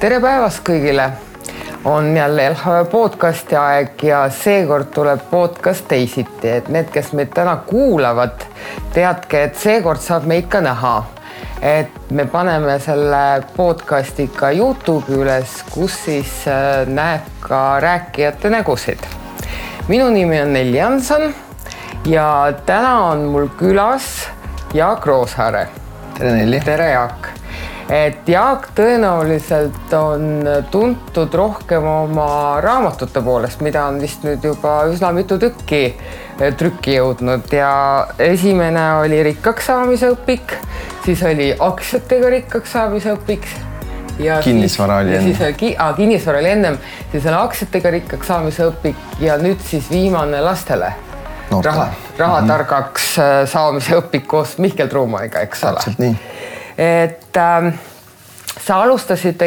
Tere päevast kõigile! On jälle LHV podcasti aeg ja seekord tuleb podcast teisiti, et need, kes meid täna kuulavad, teadke, et seekord saab meid ka näha. Et me paneme selle podcasti ka YouTube'i üles, kus siis näeb ka rääkijate nägusid. Minu nimi on Nelli Jansson ja täna on mul külas Jaak Roosaare. Tere Nelli! Tere Jaak! Et Jaak tõenäoliselt on tuntud rohkem oma raamatute poolest, mida on vist nüüd juba üsna mitu tükki trükki jõudnud ja esimene oli rikkaks saamise õpik, siis oli aktsiatega rikkaks saamise õpik ja kinnisvara oli enne. Kinnisvara oli ennem, siis on aktsiatega rikkaks saamise õpik ja nüüd siis viimane lastele rahatargaks saamise õpik koos Mihkel Truumaniga, eks ole? Täpselt nii. Et sa alustasid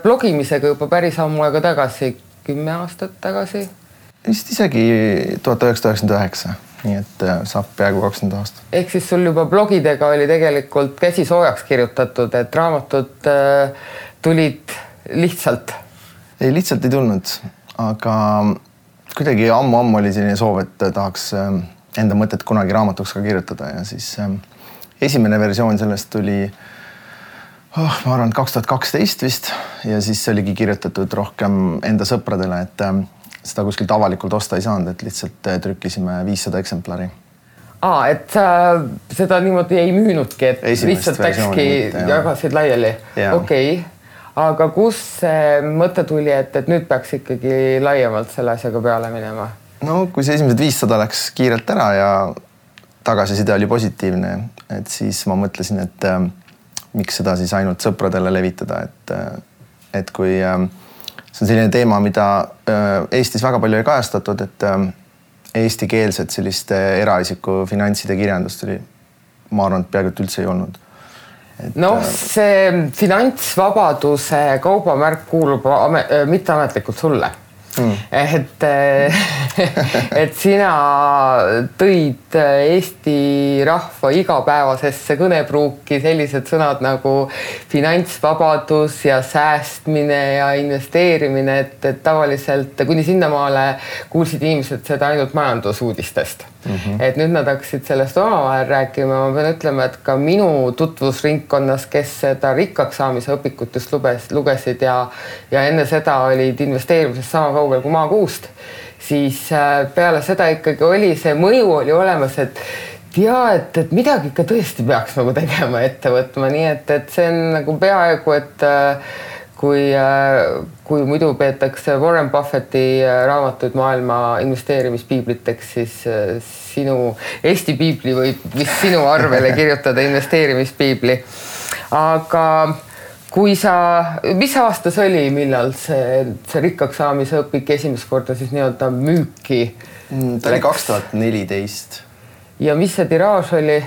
blogimisega juba päris ammu aega tagasi, 10 aastat tagasi? Vist isegi 1999, nii et saab peaaegu 20 aastat. Ehk siis sul juba blogidega oli tegelikult käsi soojaks kirjutatud, et raamatud tulid lihtsalt? Ei, lihtsalt ei tulnud, aga kuidagi ammu oli selline soov, et tahaks enda mõtet kunagi raamatuks ka kirjutada ja siis esimene versioon sellest tuli, ma arvan, 2012 vist ja siis oligi kirjutatud rohkem enda sõpradele, et seda kuskilt avalikult osta ei saanud, et lihtsalt trükkisime 500 eksemplari. Et sa seda niimoodi ei müünudki, et lihtsalt läkski jagasid laiali? Okei. Aga kus see mõte tuli, et nüüd peaks ikkagi laiemalt selle asjaga peale minema? No kui see esimesed 500 läks kiirelt ära ja tagasiside oli positiivne, et siis ma mõtlesin, et miks seda siis ainult sõpradele levitada, et kui see on selline teema, mida Eestis väga palju ei kajastatud, et eestikeelset selliste eraisiku finantside kirjandust oli, ma arvan, et peaaegu üldse ei olnud. See finantsvabaduse kaubamärk kuulub mitteametlikult sulle. Et sina tõid Eesti rahva igapäevasesse kõnepruuki sellised sõnad nagu finantsvabadus ja säästmine ja investeerimine, et tavaliselt kuni sinnamaale kuulsid inimesed seda ainult majandusuudistest. Et nüüd nad hakkasid sellest omavahel rääkima. Ma pean ütlema, et ka minu tutvusringkonnas, kes seda rikkaks saamise õpikut just lugesid ja enne seda olid investeerimisest sama kaugel kui maakuust, siis peale seda ikkagi oli see mõju oli olemas, et et midagi ikka tõesti peaks nagu tegema ette võtma, nii et see on nagu peaaegu, et kui muidu peetakse Warren Buffetti raamatuid maailma investeerimispiibliteks, siis sinu Eesti piibli võib vist sinu arvele kirjutada investeerimispiibli. Aga mis aastas oli, millal see rikkaks saamise õpik esimest korda siis nii-öelda müüki? Ta oli 2014. Ja mis see tiraaž oli?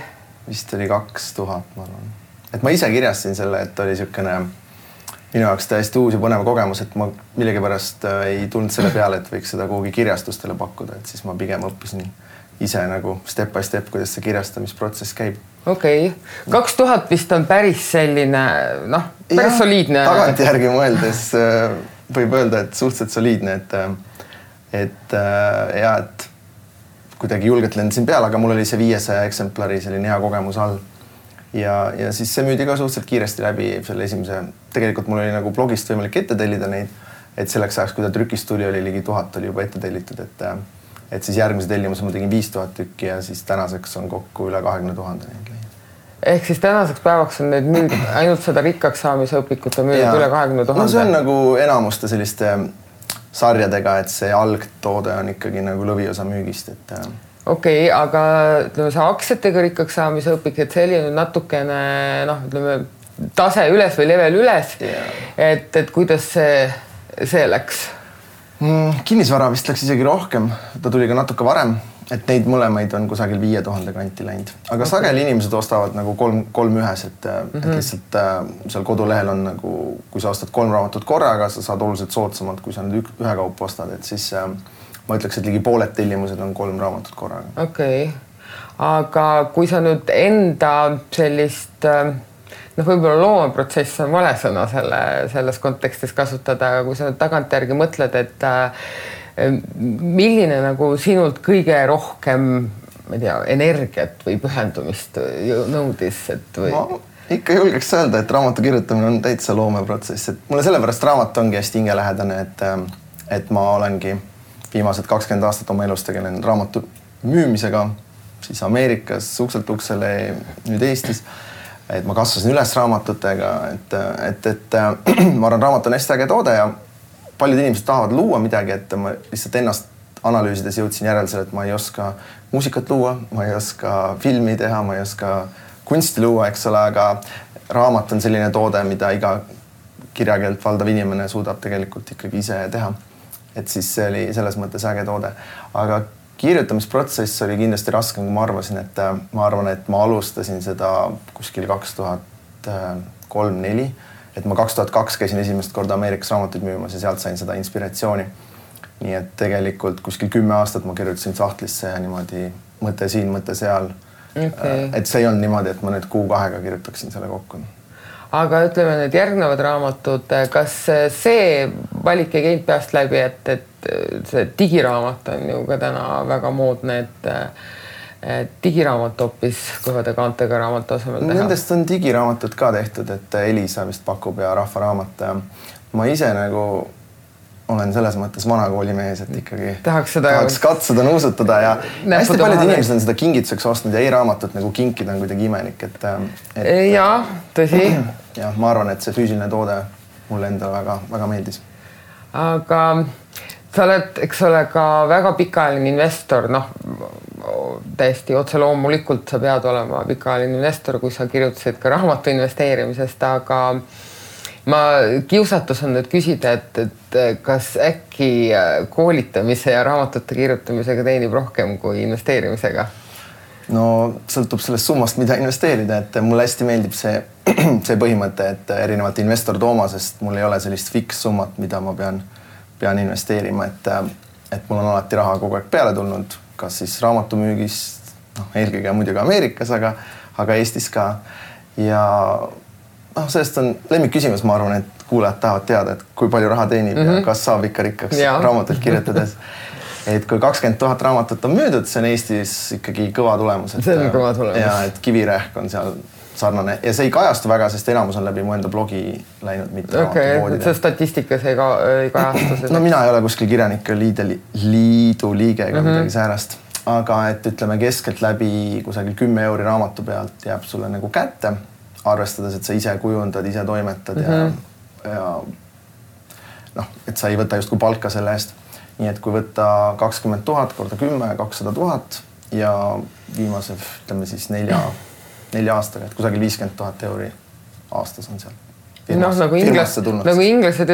Vist oli 2000, ma arvan. Et ma ise kirjastasin selle, et oli niisugune minu jaoks täiesti uus ja põnev kogemus, et ma millegipärast ei tulnud selle peale, et võiks seda kuhugi kirjastustele pakkuda, et siis ma pigem õppisin ise nagu step by step, kuidas see kirjastamisprotsess käib. Okei. 2000 vist on päris selline, päris soliidne. Tagantjärgi mõeldes võib öelda, et suhteliselt soliidne, et kuidagi julgelt lendasin peale, aga mul oli see 500 eksemplari selline hea kogemus all. Ja siis see müüdi ka suhteliselt kiiresti läbi selle esimese. Tegelikult mul oli nagu blogist võimalik ette tellida neid, et selleks ajaks, kui ta trükist tuli, oli ligi 1000 oli juba ette tellitud, et siis järgmise tellimuse ma tegin 5000 tükki ja siis tänaseks on kokku üle 20 000 neid leid. Ehk siis tänaseks päevaks on neid müüdud ainult seda rikkaks saamise õpikut on müüdud üle 20 000? No see on nagu enamuste selliste sarjadega, et see algtoode on ikkagi nagu lõviosa müügist, et Okei, aga see aktsiatega rikkaks saamise õpik, et see oli natukene tase üles või level üles, et kuidas see läks? Kinnisvara vist läks isegi rohkem, ta tuli ka natuke varem, et neid mõlemaid on kusagil 5000 kanti läinud. Aga sageli inimesed ostavad nagu kolm ühes, et lihtsalt seal kodulehel on nagu, kui sa ostad 3 raamatut korraga, sa saad oluliselt soodsamalt, kui sa nüüd ühe kaupa ostad, et siis ma ütleks, et ligi pooled tellimused on 3 raamatut korraga. Okei. aga kui sa nüüd enda sellist võib-olla loomeprotsess on vale sõna selles kontekstis kasutada, aga kui sa nüüd tagantjärgi mõtled, et milline nagu sinult kõige rohkem, ma ei tea, energiat või pühendumist nõudis, et või? Ma ikka julgeks öelda, et raamatu kirjutamine on täitsa loomeprotsess, et mulle sellepärast raamat ongi hästi hingelähedane, et ma olengi viimased 20 aastat oma elus tegelenud raamatu müümisega, siis Ameerikas ukselt uksele, nüüd Eestis. Et ma kasvasin üles raamatutega, et ma arvan, raamat on hästi äge toode ja paljud inimesed tahavad luua midagi, et ma lihtsalt ennast analüüsides jõudsin järeldusele, et ma ei oska muusikat luua, ma ei oska filmi teha, ma ei oska kunsti luua, eks ole, aga raamat on selline toode, mida iga kirjakeelt valdav inimene suudab tegelikult ikkagi ise teha. Et siis see oli selles mõttes äge toode. Aga kirjutamisprotsess oli kindlasti raskem, kui ma arvasin, et ma arvan, et ma alustasin seda kuskil 2003-2004, et ma 2002 käisin esimest korda Ameerikas raamatuid müümas ja sealt sain seda inspiratsiooni. Nii et tegelikult kuskil 10 aastat ma kirjutasin sahtlisse ja niimoodi mõte siin, mõte seal. Okay. Et see ei olnud niimoodi, et ma nüüd kuu-kahega kirjutaksin selle kokku. Aga ütleme need järgnevad raamatud, kas see valik ei käinud peast läbi, et see digiraamat on ju ka täna väga moodne, et digiraamat hoopis kõvade kaantega raamatu asemel teha? Nendest on digiraamatud ka tehtud, et Elisa vist pakub ja Rahvaraamat. Ma ise nagu olen selles mõttes vanakooli mees, et ikkagi tahaks katsuda nuusutada ja hästi paljud inimesed on seda kingituseks ostnud ja e-raamatut nagu kinkida on kuidagi imelik. Jaa, tõsi. Ja ma arvan, et see füüsiline toode mulle endale väga meeldis. Aga sa oled, eks ole, ka väga pikaajaline investor, täiesti otse loomulikult sa pead olema pikaajaline investor, kui sa kirjutasid ka raamatu investeerimisest, aga ma kiusatus on nüüd küsida, et kas äkki koolitamise ja raamatute kirjutamisega teenib rohkem kui investeerimisega? No sõltub sellest summast, mida investeerida, et mulle hästi meeldib see põhimõte, et erinevalt investor Toomasest mul ei ole sellist fiks summat, mida ma pean investeerima, et mul on alati raha kogu aeg peale tulnud, kas siis raamatumüügist, eelkõige muidugi Ameerikas, aga Eestis ka. Ja sellest on lemmikküsimus, ma arvan, et kuulajad tahavad teada, et kui palju raha teenib ja kas saab ikka rikkaks raamatut kirjutades. Et kui 20 000 raamatut on müüdud, see on Eestis ikkagi kõva tulemus. See on kõva tulemus. Ja et Kivirähk on seal sarnane ja see ei kajastu väga, sest enamus on läbi mu enda blogi läinud mitte raamatupoodide. See statistikas ei kajastu. No mina ei ole kuskil kirjanike liidu liige ega midagi säärast, aga et ütleme keskelt läbi kusagil 10 € raamatu pealt jääb sulle nagu kätte, arvestades, et sa ise kujundad, ise toimetad ja et sa ei võta just kui palka selle eest. Nii et kui võtta 20 000 korda 10, 200 000 ja viimase, ütleme siis 4 aastaga, et kusagil 50 000 € aastas on seal. Nagu inglased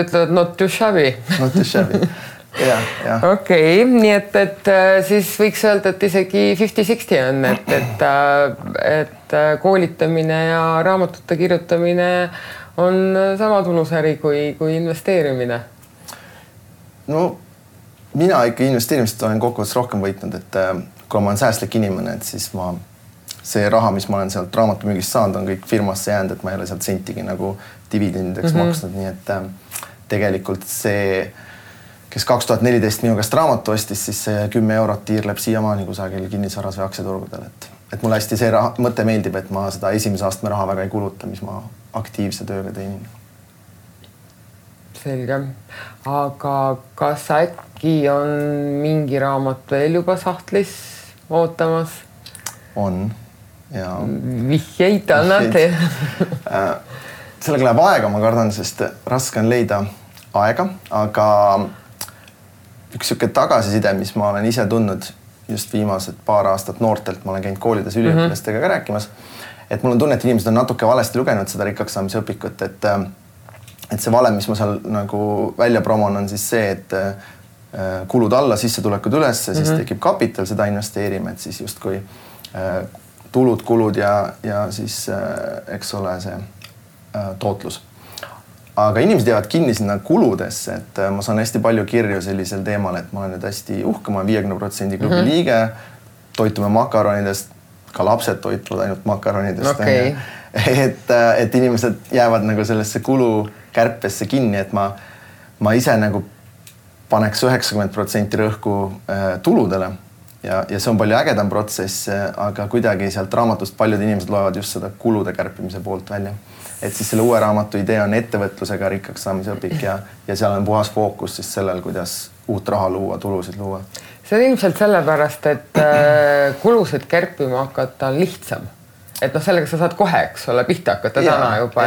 ütlevad not too shabby. Not too shabby, jah. Okei, nii et siis võiks öelda, et isegi 50-60 on, et koolitamine ja raamatute kirjutamine on sama tulusäri kui investeerimine. No mina ikka investeerimist olen kokkuvõttes rohkem võitnud, et kui ma olen säästlik inimene, et siis see raha, mis ma olen sealt raamatumüügist saanud, on kõik firmasse jäänud, et ma ei ole sealt sentigi nagu dividendideks maksnud, nii et tegelikult see, kes 2014 minu käest raamatu ostis, siis see 10 € tiirleb siiamaani kusagil kinnisvaras või aktsiaturgudel, et mulle hästi see mõte meeldib, et ma seda esimese astme raha väga ei kuluta, mis ma aktiivse tööga teenin. Selge. Aga kas äkki on mingi raamat veel juba sahtlis ootamas? On. Ja vihjeid annate? Sellega läheb aega, ma kardan, sest raske on leida aega, aga üks siuke tagasiside, mis ma olen ise tundnud just viimased paar aastat noortelt, ma olen käinud koolides üliõpilastega ka rääkimas, et mul on tunne, et inimesed on natuke valesti lugenud seda rikkaks saamise õpikut, et see valem, mis ma seal nagu välja promon, on siis see, et kulud alla, sissetulekud üles, siis tekib kapital, seda investeerime, et siis justkui tulud, kulud ja siis eks ole see tootlus. Aga inimesed jäävad kinni sinna kuludesse, et ma saan hästi palju kirju sellisel teemal, et ma olen nüüd hästi uhke, ma olen 50% klubi liige, toitume makaronidest, ka lapsed toituvad ainult makaronidest. Okay. Et inimesed jäävad nagu sellesse kulukärpesse kinni, et ma ise nagu paneks 90% rõhku tuludele ja see on palju ägedam protsess, aga kuidagi sealt raamatust paljud inimesed loevad just seda kulude kärpimise poolt välja. Et siis selle uue raamatu idee on ettevõtlusega rikkaks saamise õpik ja seal on puhas fookus siis sellel, kuidas uut raha luua, tulusid luua. See on ilmselt sellepärast, et kulusid kärpima hakata on lihtsam. Et sellega sa saad kohe, eks ole, pihta hakata täna juba,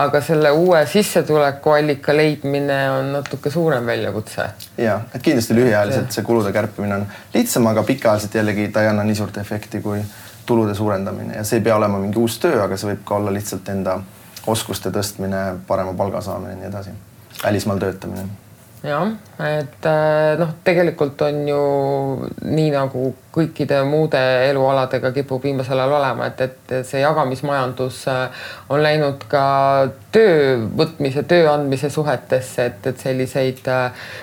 aga selle uue sissetuleku allika leidmine on natuke suurem väljakutse. Ja, et kindlasti lühiajaliselt see kulude kärpimine on lihtsam, aga pikaajaliselt jällegi ta ei anna nii suurt efekti kui tulude suurendamine ja see ei pea olema mingi uus töö, aga see võib ka olla lihtsalt enda oskuste tõstmine, parema palga saamine ja nii edasi. Välismaal töötamine. Jah, et tegelikult on ju nii nagu kõikide muude elualadega kipub viimasel ajal olema, et see jagamismajandus on läinud ka töö võtmise, töö andmise suhetesse, et selliseid,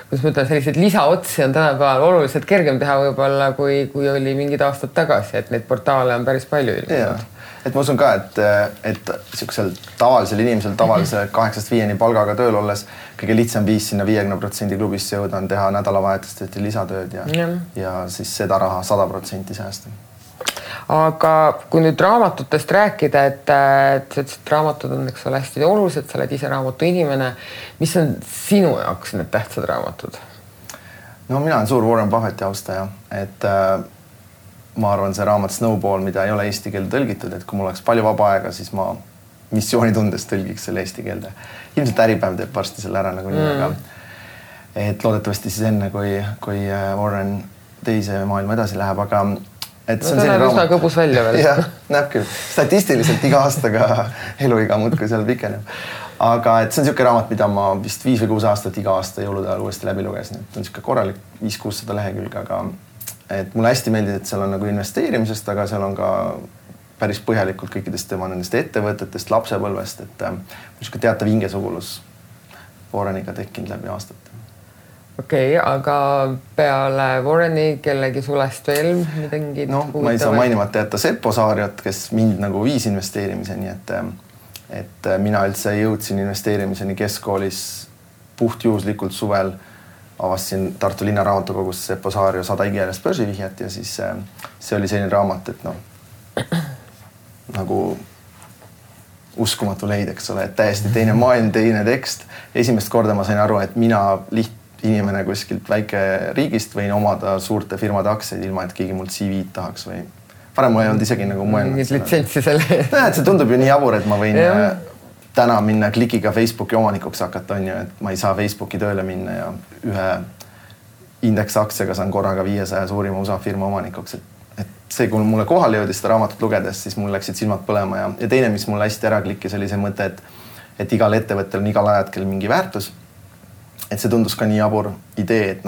kuidas ma ütlen, selliseid lisaotsi on tänapäeval oluliselt kergem teha võib-olla, kui oli mingid aastad tagasi, et neid portaale on päris palju ilmunud. Et ma usun ka, et siuksel tavalisel inimesel tavalise 8-5 palgaga tööl olles kõige lihtsam viis sinna 50% klubisse jõuda on teha nädalavahetust lisatööd ja siis seda raha 100% säästa. Aga kui nüüd raamatutest rääkida, et raamatud on eks ole hästi olulised, sa oled ise raamatu inimene, mis on sinu jaoks need tähtsad raamatud? No mina olen suur Warren Buffetti austaja, et ma arvan, see raamat Snowball, mida ei ole eesti keelde tõlgitud, et kui mul oleks palju vaba aega, siis ma missioonitundes tõlgiks selle eesti keelde. Ilmselt Äripäev teeb varsti selle ära nagu nii, aga et loodetavasti siis enne, kui Warren teise maailma edasi läheb, aga et see on selline raamat. Üsna kõbus välja veel. Jah, näeb küll. Statistiliselt iga aastaga eluiga muudkui seal pikeneb. Aga et see on siuke raamat, mida ma vist 5 või 6 aastat iga aasta jõulude ajal uuesti läbi lugesin. Et on siuke korralik 500-600 lehekülge, aga et mulle hästi meeldib, et seal on nagu investeerimisest, aga seal on ka päris põhjalikult kõikidest tema nendest ettevõtetest, lapsepõlvest, et niisugune teatav hingesugulus Warreniga tekkinud läbi aastate. Okei, aga peale Warreni kellegi sulest veel midagi? No, ma ei saa mainimata jätta Seppo Saariot, kes mind nagu viis investeerimiseni, et mina üldse jõudsin investeerimiseni keskkoolis puhtjuhuslikult suvel avastasin Tartu linna raamatukogus Seppo Saario 100 igikeelest börsivihjat ja siis see oli selline raamat, et nagu uskumatu leid, eks ole, et täiesti teine maailm, teine tekst. Esimest korda ma sain aru, et mina inimene kuskilt väike riigist võin omada suurte firmade aktsiaid ilma, et keegi mult CV-d tahaks või varem mul ei olnud isegi nagu mõelnud. Mingid litsentsi selle. See tundub ju nii jabur, et ma võin täna minna klikiga Facebooki omanikuks hakata, on ju, et ma ei saa Facebooki tööle minna ja ühe indeksaktsiaga saan korraga 500 suurima USA firma omanikuks. Et see, kui mulle kohale jõudis seda raamatut lugedes, siis mul läksid silmad põlema ja teine, mis mulle hästi ära klikkis, oli see mõte, et igal ettevõttel on igal ajatkel mingi väärtus. Et see tundus ka nii jabur idee, et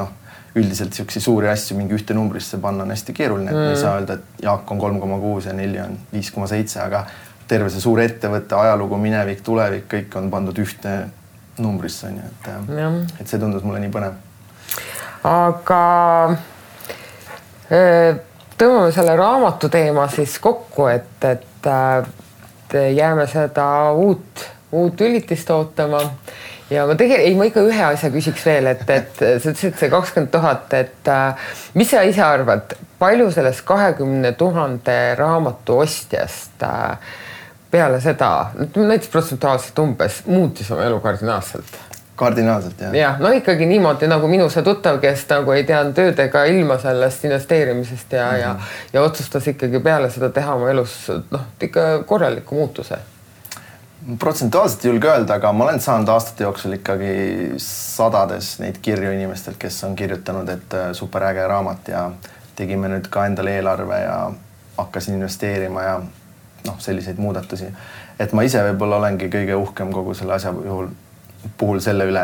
üldiselt siuksi suuri asju mingi ühte numbrisse panna on hästi keeruline, et me ei saa öelda, et Jaak on 3,6 ja 4 on 5,7, aga terve see suur ettevõtte, ajalugu, minevik, tulevik, kõik on pandud ühte numbrisse, on ju, et see tundus mulle nii põnev. Aga tõmbame selle raamatu teema siis kokku, et jääme seda uut ülitist ootama ja ma ikka ühe asja küsiks veel, et sa ütlesid see 20 000, et mis sa ise arvad, palju sellest 20 000 raamatu ostjast peale seda, näiteks protsentuaalselt umbes, muutis oma elu kardinaalselt? Kardinaalselt, jah. Jah, ikkagi niimoodi nagu minu see tuttav, kes nagu ei teanud töödega ilma sellest investeerimisest ja otsustas ikkagi peale seda teha oma elus ikka korraliku muutuse. Protsentuaalselt ei julge öelda, aga ma olen saanud aastate jooksul ikkagi sadades neid kirju inimestelt, kes on kirjutanud, et superäge raamat ja tegime nüüd ka endale eelarve ja hakkasin investeerima ja selliseid muudatusi. Et ma ise võib-olla olengi kõige uhkem kogu selle asja puhul selle üle,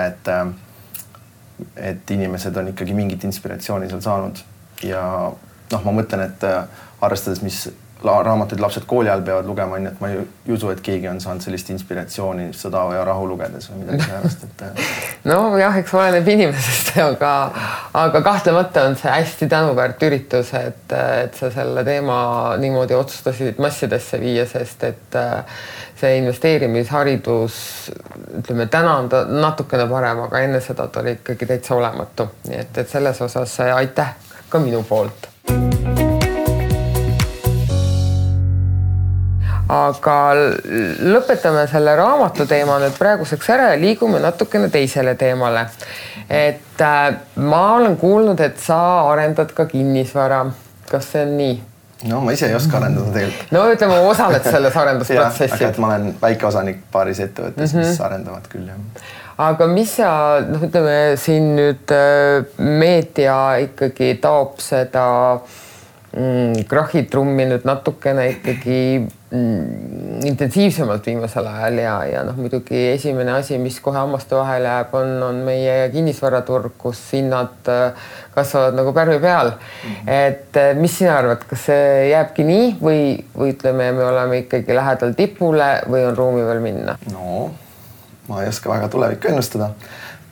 et inimesed on ikkagi mingit inspiratsiooni seal saanud ja noh, ma mõtlen, et arvestades, mis raamatuid lapsed kooli ajal peavad lugema, nii et ma ei usu, et keegi on saanud sellist inspiratsiooni Sõda ja rahu lugedes või midagi sellest, et no jah, eks oleneb inimesest, aga kahtlemata on see hästi tänuväärt üritus, et sa selle teema niimoodi otsustasid massidesse viia, sest et see investeerimisharidus, ütleme, täna on ta natukene parem, aga enne seda ta oli ikkagi täitsa olematu. Nii et selles osas aitäh ka minu poolt. Aga lõpetame selle raamatu teema nüüd praeguseks ära ja liigume natukene teisele teemale. Et ma olen kuulnud, et sa arendad ka kinnisvara. Kas see on nii? No ma ise ei oska arendada tegelikult. No ütleme, osaled selles arendusprotsessis. Aga et ma olen väikeosanik paaris ettevõttes, mis arendavad küll. Aga mis sa, ütleme, siin nüüd meedia ikkagi taob seda krahitrummi nüüd natukene ikkagi intensiivsemalt viimasel ajal ja muidugi esimene asi, mis kohe hammaste vahele jääb, on meie kinnisvaraturg, kus hinnad kasvavad nagu pärmi peal. Et mis sina arvad, kas see jääbki nii või ütleme, me oleme ikkagi lähedal tipule või on ruumi veel minna? No, ma ei oska väga tulevikku ennustada.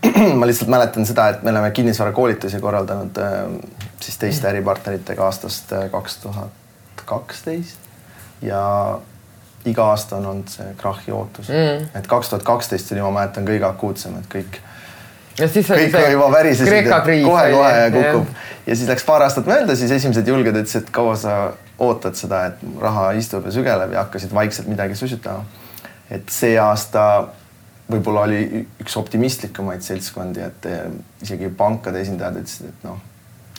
Ma lihtsalt mäletan seda, et me oleme kinnisvarakoolitusi korraldanud siis teiste äripartneritega aastast 2012 ja iga aasta on olnud see krahi ootus. Et 2012 oli, ma mäletan, kõige akuutsem, et kõik juba värisesid, kohe ja kukub. Ja siis läks paar aastat mööda, siis esimesed julged ütlesid, et kaua sa ootad seda, et raha istub ja sügeleb ja hakkasid vaikselt midagi susutama. Et see aasta võib-olla oli üks optimistlikumaid seltskondi, et isegi pankade esindajad ütlesid, et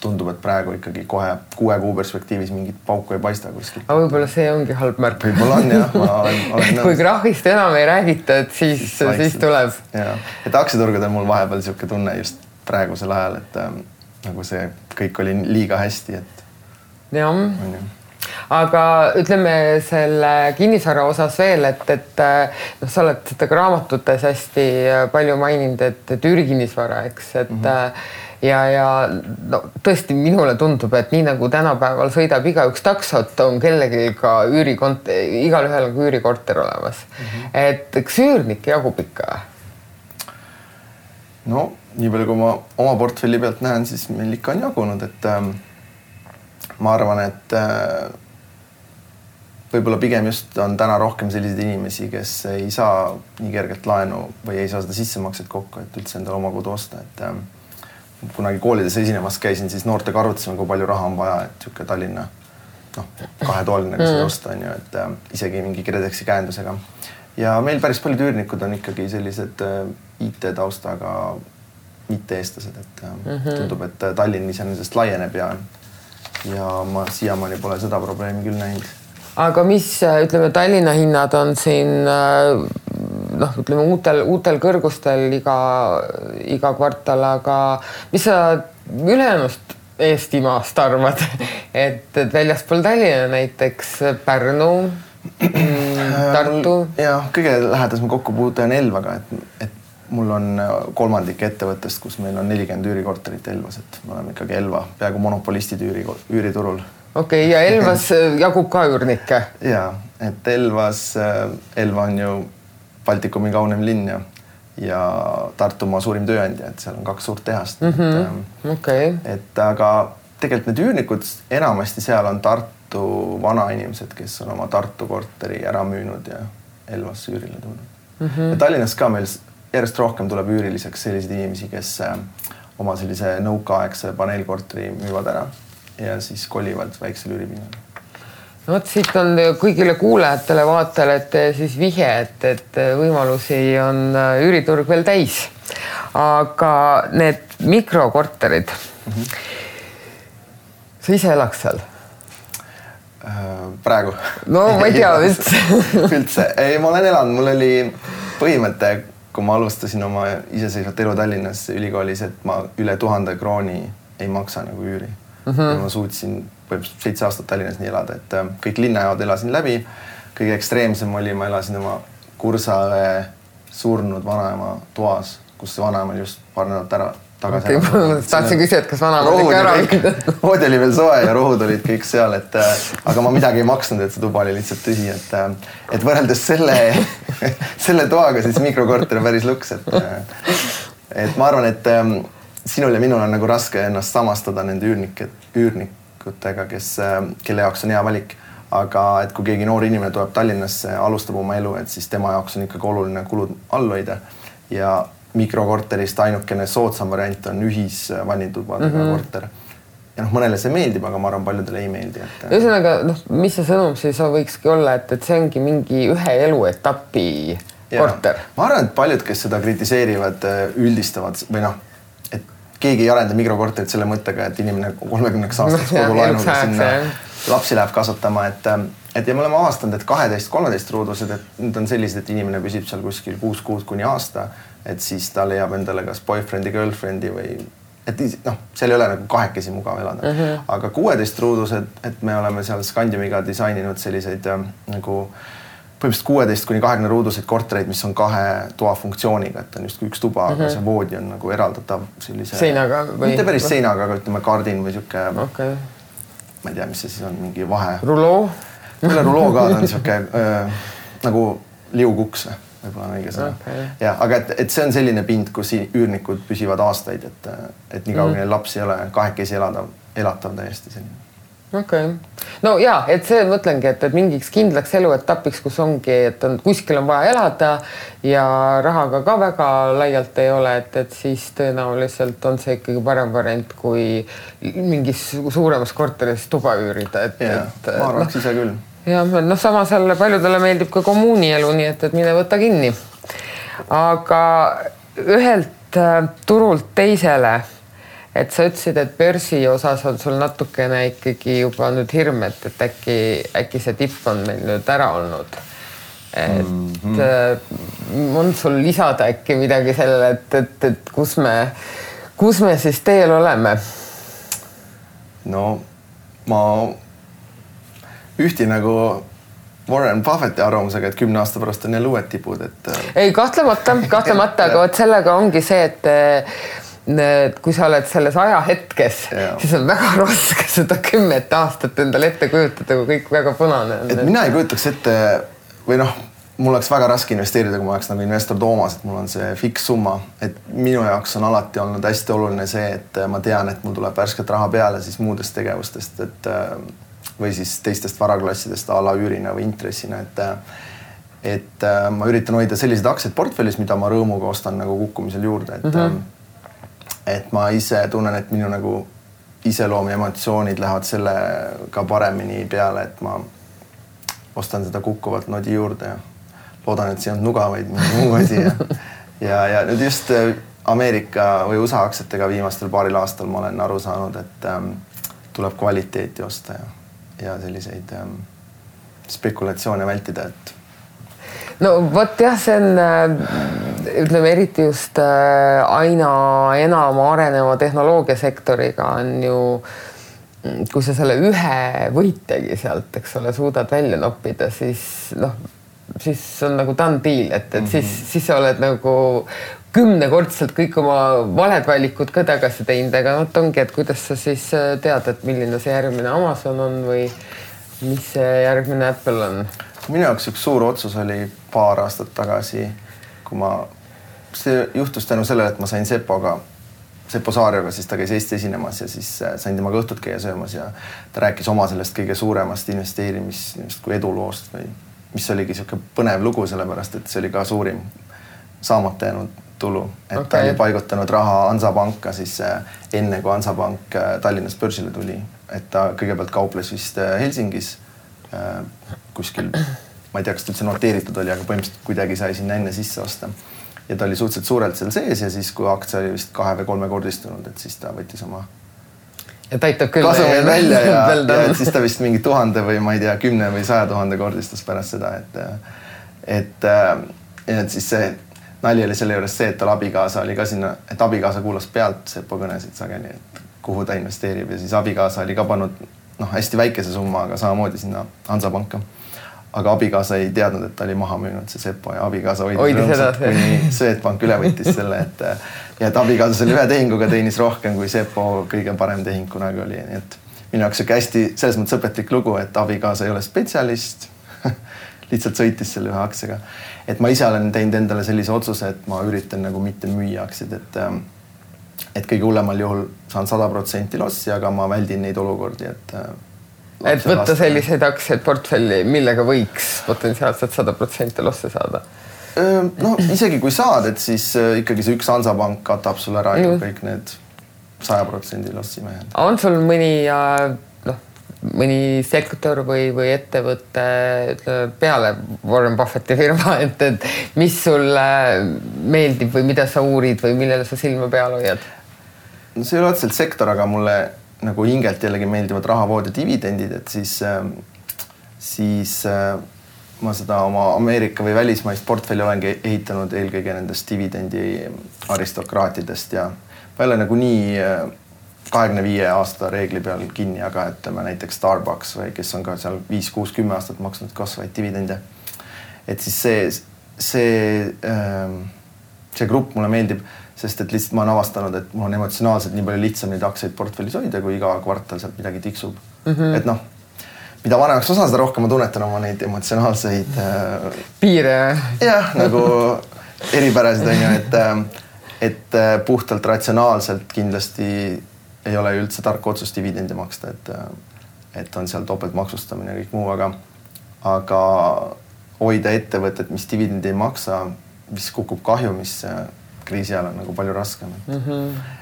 tundub, et praegu ikkagi kohe 6 kuu perspektiivis mingit pauku ei paista kuskilt. Aga võib-olla see ongi halb märk. Võib-olla on, jah. Et kui krahist enam ei räägita, et siis tuleb. Ja. Et aktsiaturgudel mul vahepeal siuke tunne just praegusel ajal, et nagu see kõik oli liiga hästi, et jah. Aga ütleme selle kinnisvara osas veel, et sa oled seda ka raamatutes hästi palju maininud, et üürikinnisvara, eks, et ja tõesti minule tundub, et nii nagu tänapäeval sõidab igaüks taksot, on kellegi ka igalühel on üürikorter olemas. Et eks üürnik jagub ikka? No, nii palju kui ma oma portfelli pealt näen, siis meil ikka on jagunud, et ma arvan, et võib-olla pigem just on täna rohkem selliseid inimesi, kes ei saa nii kergelt laenu või ei saa seda sissemakset kokku, et üldse endale oma kodu osta, et kunagi koolides esinemas käisin, siis noortega arutasime, kui palju raha on vaja, et siuke Tallinna 2-toaline seda osta, et isegi mingi KredExi käendusega. Ja meil päris paljud üürnikud on ikkagi sellised IT-taustaga mitte eestlased, et tundub, et Tallinn iseenesest laieneb ja ma siiamaani pole seda probleemi küll näinud. Aga mis, ütleme, Tallinna hinnad on siin ütleme uutel kõrgustel iga kvartal, aga mis sa ülejäänud Eestimaast arvad, et väljaspool Tallinna näiteks Pärnu, Tartu? Jah, kõige lähedasem kokkupuute on Elvaga, et mul on kolmandik ettevõttest, kus meil on 40 üürikorterit Elvas, et me oleme ikkagi Elva peaaegu monopolistid üüriturul. Okei, ja Elvas jagub ka üürnikke? Jaa, et Elva on ju Baltikumi kaunem linn ja Tartumaa suurim tööandja, et seal on 2 suurt tehast. Et aga tegelikult need üürnikud enamasti seal on Tartu vanainimesed, kes on oma Tartu korteri ära müünud ja Elvas üürile tulnud. Ja Tallinnas ka meil järjest rohkem tuleb üüriliseks selliseid inimesi, kes oma sellise nõukaaegse paneelkorteri müüvad ära ja siis kolivad väiksel üüripinnal. No siit on kõigile kuulajatele vaatajale, et siis vihje, et võimalusi on üüriturg veel täis. Aga need mikrokorterid, sa ise elaks seal? Praegu? No ma ei tea üldse. Üldse. Ei, ma olen elanud. Mul oli põhimõte, kui ma alustasin oma iseseisvat elu Tallinnas ülikoolis, et ma üle 1000 krooni ei maksa nagu üüri. Ja ma suutsin 7 aastat Tallinnas nii elada, et kõik linnajaod elasin läbi. Kõige ekstreemsem oli, ma elasin oma kursaõe surnud vanaema toas, kus see vanaema just paar nädalat tagasi. Tahtsin küsida, et kas vanaema ikka ära olid. Voodi oli veel soe ja rohud olid kõik seal, aga ma midagi ei maksnud, et see tuba oli lihtsalt tühi, et võrreldes selle toaga siis mikrokorter on päris luks, et ma arvan, et sinul ja minul on nagu raske ennast samastada nende üürnikutega, kelle jaoks on hea valik. Aga et kui keegi noor inimene tuleb Tallinnasse, alustab oma elu, et siis tema jaoks on ikkagi oluline kulud all hoida. Ja mikrokorterist ainukene soodsam variant on ühisvannitubadega korter. Ja mõnele see meeldib, aga ma arvan, paljudele ei meeldi. Ühesõnaga, mis see sõnum siis võikski olla, et see ongi mingi ühe eluetapi korter? Ma arvan, et paljud, kes seda kritiseerivad, üldistavad või et keegi ei arenda mikrokorterit selle mõttega, et inimene 30 aastaks kogu laenuga sinna lapsi läheb kasvatama, et ja me oleme avastanud, et 12-13 ruudused, et need on sellised, et inimene püsib seal kuskil 6 kuud kuni aasta, et siis ta leiab endale kas boyfriend'i, girlfriend'i või et seal ei ole nagu kahekesi mugav elada. Aga 16 ruudused, et me oleme seal Scandiumiga disaininud selliseid nagu põhimõtteliselt 16 kuni 20 ruuduseid kortereid, mis on 2 toa funktsiooniga, et on just üks tuba, aga see voodi on nagu eraldatav sellise... Seinaga või? Mitte päris seinaga, aga ütleme kardin või siuke... Okay. Ma ei tea, mis see siis on, mingi vahe... Ruloo? Selle ruloo ka on siuke nagu liukuks, võib-olla on õige sõna. Okay. Ja, aga et see on selline pind, kus üürnikud püsivad aastaid, et nii kaua lapsi ei ole kahekesi elatav täiesti selline. Okay. No jaa, et see mõtlengi, et mingiks kindlaks eluetapiks, kus ongi, et kuskil on vaja elada ja rahaga ka väga laialt ei ole, et siis tõenäoliselt on see ikkagi parem variant, kui mingis suuremas korteris tuba üürida. Ma arvaks ise küll. Ja samas jälle paljudele meeldib ka kommuunielu, nii et mine võta kinni. Aga ühelt turult teisele, et sa ütlesid, et börsi osas on sul natukene ikkagi juba nüüd hirm, et äkki see tipp on meil nüüd ära olnud. Et on sul lisada äkki midagi sellele, et kus me siis teel oleme? No ma ühti nagu Warren Buffetti arvamusega, et 10 aasta pärast on jälle uued tipud. Ei, kahtlemata, aga sellega ongi see, et kui sa oled selles ajahetkes, siis on väga raske seda 10 aastat endale ette kujutada, kui kõik väga punane on. Et mina ei kujutaks ette, või mul oleks väga raske investeerida, kui ma oleks nagu investor Toomas, et mul on see fiks summa. Et minu jaoks on alati olnud hästi oluline see, et ma tean, et mul tuleb värsket raha peale siis muudest tegevustest, või siis teistest varaklassidest a la üürina või intressina, et ma üritan hoida sellised aktsiad portfellis, mida ma rõõmuga ostan nagu kukkumisel juurde, et ma ise tunnen, et minu nagu iseloom ja emotsioonid lähevad sellega paremini peale, et ma ostan seda kukkuvalt nodi juurde ja loodan, et see on nuga, vaid mingi muu asi. Ja nüüd just Ameerika või USA aktsiatega viimastel paaril aastal ma olen aru saanud, et tuleb kvaliteeti osta ja selliseid spekulatsioone vältida, et no vot jah, see on, ütleme eriti just aina enam areneva tehnoloogiasektoriga on ju, kui sa selle ühe võitjagi sealt, eks ole, suudad välja noppida, siis on nagu done deal, et siis sa oled nagu 10-kordselt kõik oma valed valikud ka tagasi teinud, aga ongi, et kuidas sa siis tead, et milline see järgmine Amazon on või mis see järgmine Apple on? Minu jaoks üks suur otsus oli paar aastat tagasi, kui see juhtus tänu sellele, et ma sain Seppo Saarioga, siis ta käis Eesti esinemas ja siis sain temaga õhtut käia söömas ja ta rääkis oma sellest kõige suuremast investeerimist kui eduloost või mis oligi siuke põnev lugu, sellepärast, et see oli ka suurim saamata jäänud tulu, et ta oli paigutanud raha Hansapanka siis enne, kui Hansapank Tallinnas börsile tuli, et ta kõigepealt kauples vist Helsingis kuskil, ma ei tea, kas ta üldse noteeritud oli, aga põhimõtteliselt kuidagi sai sinna enne sisse osta. Ja ta oli suhteliselt suurelt seal sees ja siis, kui aktsia oli vist 2 või 3 kordistunud, et siis ta võttis oma kasumi välja ja siis ta vist mingi 1000 või ma ei tea, 10 või 100 000 kordistus pärast seda, et siis see nali oli selle juures see, et tal abikaasa oli ka sinna, et abikaasa kuulas pealt Seppo kõnesid sageli, et kuhu ta investeerib ja siis abikaasa oli ka pannud hästi väikese summa, aga samamoodi sinna Hansapanka. Aga abikaasa ei teadnud, et ta oli maha müünud see Seppo ja abikaasa hoidis rõõmsalt, kuni Swedbank üle võttis selle, ja et abikaasa selle ühe tehinguga teenis rohkem kui Sepo kõige parem tehing kunagi oli, nii et minu jaoks siuke hästi selles mõttes õpetlik lugu, et abikaasa ei ole spetsialist lihtsalt sõitis selle ühe aktsiaga. Et ma ise olen teinud endale sellise otsuse, et ma üritan nagu mitte müüa aktsiaid, et kõige hullemal juhul saan 100% lossi, aga ma väldin neid olukordi, et võtta selliseid aktsiaid portfelli, millega võiks potentsiaalselt 100% losse saada. No isegi kui saad, et siis ikkagi see üks Hansapank katab sul ära ju kõik need 100% lossi mehed. On sul mõni sektor või ettevõte peale Warren Buffetti firma, et mis sulle meeldib või mida sa uurid või millele sa silma peal hoiad? No see ei ole otseselt sektor, aga mulle nagu hingelt jällegi meeldivad rahavood ja dividendid, et siis ma seda oma Ameerika või välismaist portfelli olengi ehitanud eelkõige nendest dividendi aristokraatidest ja ma ei ole nagu nii 25 aasta reegli peal kinni, aga ütleme näiteks Starbucks või kes on ka seal 5-6-10 aastat maksnud kasvaid dividende. Et siis see grupp mulle meeldib, sest et lihtsalt ma olen avastanud, et mul on emotsionaalselt nii palju lihtsam neid aktsiaid portfellis hoida, kui iga kvartal sealt midagi tiksub. Et noh, mida vanemaks ma saan, seda rohkem ma tunnetan oma neid emotsionaalseid piire. Jah, nagu eripärasid on ju, et puhtalt ratsionaalselt kindlasti ei ole üldse tark otsus dividendi maksta, et on seal topelt maksustamine ja kõik muu, aga hoida ettevõtet, mis dividendi ei maksa, mis kukub kahjumisse kriisi ajal on nagu palju raskem.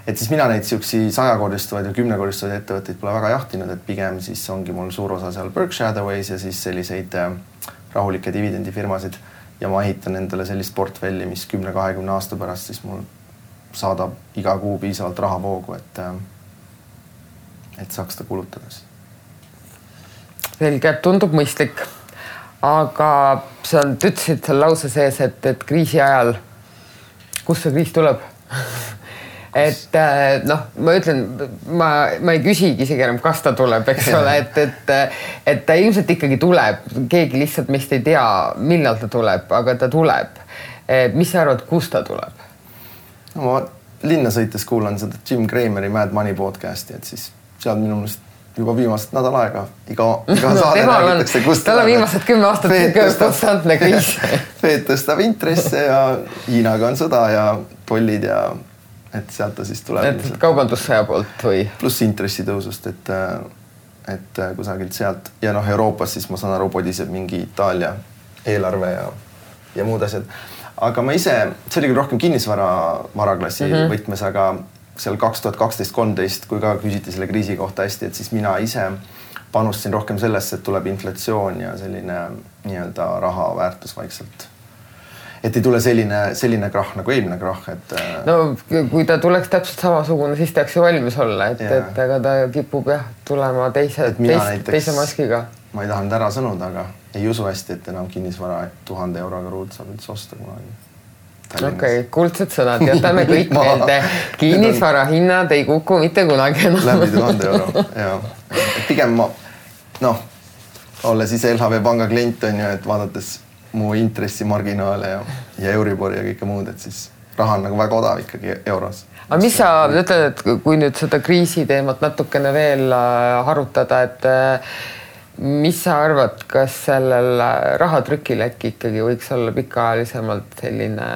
Et siis mina neid siuksi 100-kordistuvaid ja 10-kordistuvaid ettevõtteid pole väga jahtinud, et pigem siis ongi mul suur osa seal Berkshire Hathaway's ja siis selliseid rahulikke dividendifirmasid ja ma ehitan endale sellist portfelli, mis 10-20 aasta pärast siis mul saadab iga kuu piisavalt rahavoogu, et saaks ta kulutada. Selge, tundub mõistlik. Aga sa ütlesid seal lause sees, et kriisi ajal, kus see kriis tuleb? Et ma ütlen, ma ei küsigi isegi enam, kas ta tuleb, eks ole, et ta ilmselt ikkagi tuleb. Keegi lihtsalt meist ei tea, millal ta tuleb, aga ta tuleb. Mis sa arvad, kus ta tuleb? No, ma linna sõites kuulan seda Jim Crameri Mad Money podcasti, et siis seal minu mõnest juba viimased nädal aega iga saade räägitakse, kust tal on viimased 10 aastat konstantne kriis. Fed tõstab intresse ja Hiinaga on sõda ja tollid ja et sealt ta siis tuleb. Et kaubandussõja poolt või? Pluss intressitõusust, et kusagilt sealt. Ja Euroopas siis ma saan aru, podiseb mingi Itaalia eelarve ja muud asjad. Aga ma ise, see oli küll rohkem kinnisvaraklassi võtmes, aga seal 2012-13, kui ka küsiti selle kriisi kohta hästi, et siis mina ise panustasin rohkem sellesse, et tuleb inflatsioon ja selline nii-öelda raha väärtus vaikselt. Et ei tule selline krahh nagu eelmine krahh, et... No kui ta tuleks täpselt samasugune, siis tahaks ju valmis olla, et aga ta kipub tulema teise maskiga. Ma ei taha nüüd ära sõnuda, aga ei usu hästi, et enam kinnisvara 1000 euroga ruud saab üldse osta kunagi. Okei, kuldsed sõnad, jätame kõik meelde. Kinnisvara hinnad ei kuku mitte kunagi enam. Läbi 1000 euro, ja. Pigem ma, olles ise LHV panga klient on ju, et vaadates mu intressimarginaale ja Euribori ja kõike muud, et siis raha on nagu väga odav ikkagi euros. Aga mis sa ütled, et kui nüüd seda kriisi teemat natukene veel harutada, et mis sa arvad, kas sellel rahatrükil äkki ikkagi võiks olla pikaajalisemalt selline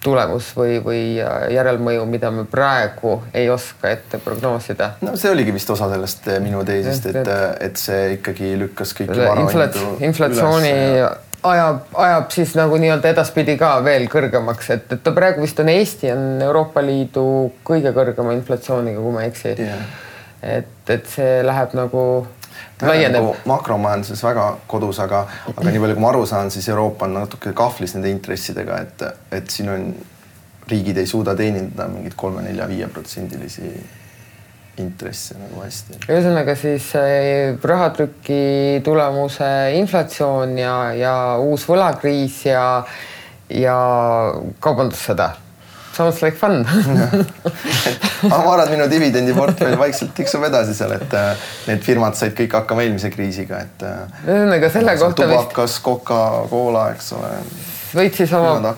tulemus või järelmõju, mida me praegu ei oska ette prognoosida? No see oligi vist osa sellest minu teisist, et see ikkagi lükkas kõiki varahindu inflatsiooni ajab siis nagu nii-öelda edaspidi ka veel kõrgemaks, et ta praegu vist on Eesti on Euroopa Liidu kõige kõrgema inflatsiooniga, kui ma eksi. Et see läheb nagu laieneb. Makromajanduses väga kodus, aga nii palju kui ma aru saan, siis Euroopa on natuke kahvlis nende intressidega, et siin on riigid ei suuda teenindada mingid 3-4-5% intresse nagu hästi. Ühesõnaga siis rahatrüki tulemuse inflatsioon ja uus võlakriis ja kaubandussõda. Sounds like fun. Ma arvan, minu dividendiportfell vaikselt tiksub edasi seal, et need firmad said kõik hakkama eelmise kriisiga, et selle kohta tubakas, Coca-Cola, eks ole. võid siis oma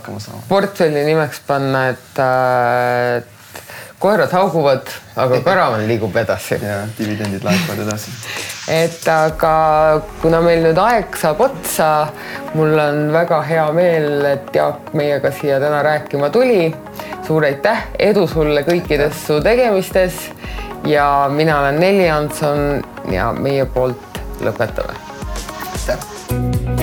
portfelli nimeks panna, et koerad hauguvad, aga karavan liigub edasi. Ja dividendid laekuvad edasi. Et aga kuna meil nüüd aeg saab otsa, mul on väga hea meel, et Jaak meiega siia täna rääkima tuli. Suur aitäh, edu sulle kõikides su tegemistes ja mina olen Nelli Hanson ja meie poolt lõpetame. Aitäh!